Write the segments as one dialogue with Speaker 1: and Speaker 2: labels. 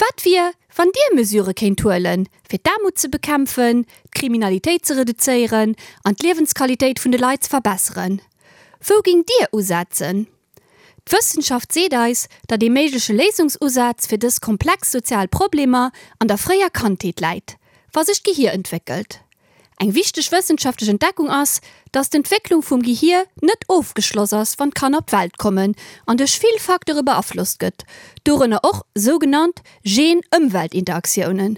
Speaker 1: Wat wier, wann Dir Mesurë kéint huelen, fir d'Aarmut ze bekämpfen, d'Kriminalitéit ze reduzéieren an d'Liewensqualitéit vun de Leit ze verbesseren? Wou géingt Dir usetzen? D'Wëssenschaft seet eis, datt ee méigleche Léisungsusaz fir dës komplex sozial Problemer an der fréier Kandheet läit, wa sech d'Gehier entwéckelt. Eng wichteg wëssenschaftlech Entdeckung ass, datt d'Entwécklung vum Gehier net ofgeschloss ass, wann d'Kanner op d'Welt kommen an duerch vill Facteure beaflosst gëtt, dorënner och sougenannt Gen-Ëmwelt-Interaktiounen.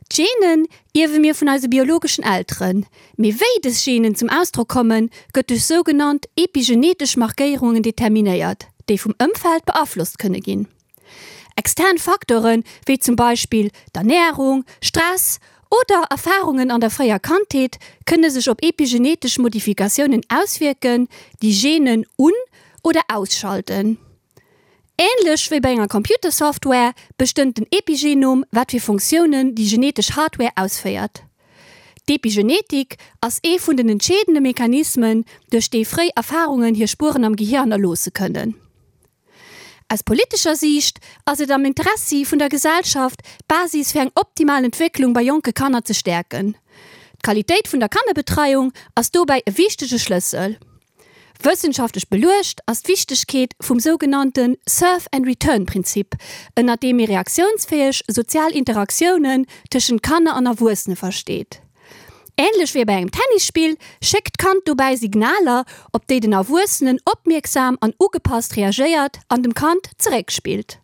Speaker 1: D'Genen ierwe mir vun eise biologeschen Elteren, mee wéi dës Genen zum Ausdrock kommen, gëtt duerch sougenannt epigenetesch Markéierungen determinéiert, déi vum Ëmfeld beaflosst kënne ginn. Extern Facteure wéi zum Beispill d'Ernärung, Stress oder Erfarungen an der fréier Kandheet kënne sech op epigenetesch Modifikatiounen auswierken, déi Genen un oder ausschalten. Änlech wéi bei enger Computersoftware bestëmmt den Epigenom, wat fir Funktiounen déi genetesch Hardware ausféiert. D'Epigenetik ass ee vun den entscheedende Mechanismen, duerch déi fréi Erfarungen hir Spueren am Gehier hannerloosse kënnen. Aus politescher Siicht ass et am Interessi vun der Gesellschaft, d'Basis fir eng optimal Entwécklung bei jonke Kanner ze stäerken. D'Qualitéit vun der Kannerbetreiung ass dobäi e wichtege Schlëssel. Wëssenschaftlech beluecht ass d'Wichtegkeet vum sougenannte Serve and Return Prinzip, ënnert deem ee reaktiounsfäeg sozial Interaktiounen tëschent Kanner an Erwuessene versteet. Änlech wéi bei engem Tennisspill schéckt d'Kand dobäi Signaler, op déi den Erwuessenen opmierksam an ugepasst reagéiert an dem Kand zeréckspillt.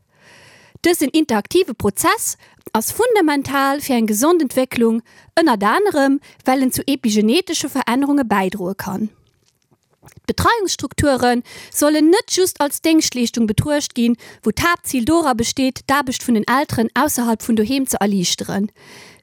Speaker 1: Dësen interaktive Prozess ass fundamental fir eng gesond Entwécklung, ënnert anerem well en zu epigenetesche Verännerunge bäidroe kann. D'Betreiungsstrukture sollen net just als Déngschtleeschtung betruecht ginn, wou d'Haaptzil dora besteet, d'Aarbecht vun den Elteren ausserhalb vun doheem ze erliichteren.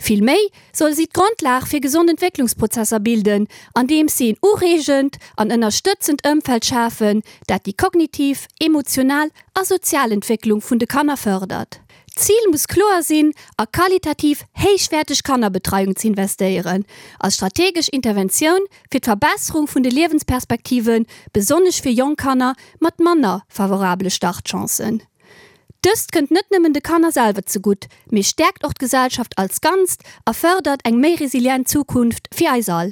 Speaker 1: Vill méi solle si d'Grondlag fir gesond Entwécklungsprozesser bilden, andeems si en ureegend an ënnerstëtzend Ëmfeld schafen, dat déi kognitiv, emotional a sozial Entwécklung vun de Kanner fërdert. D'Zil muss kloer sinn, a qualitativ héichwäerteg Kannerbetreiung ze investéieren, als strategesch Interventioun fir d'Verbesserung vun de Liewensperspektiven, besonnesch fir jonk Kanner mat manner favorabele Startchancen. Dëst kënnt net nëmmen de Kanner selwer zegutt, mee stäerkt och d'Gesellschaft als Ganzt a fërdert eng méi resilient Zukunft fir eis all.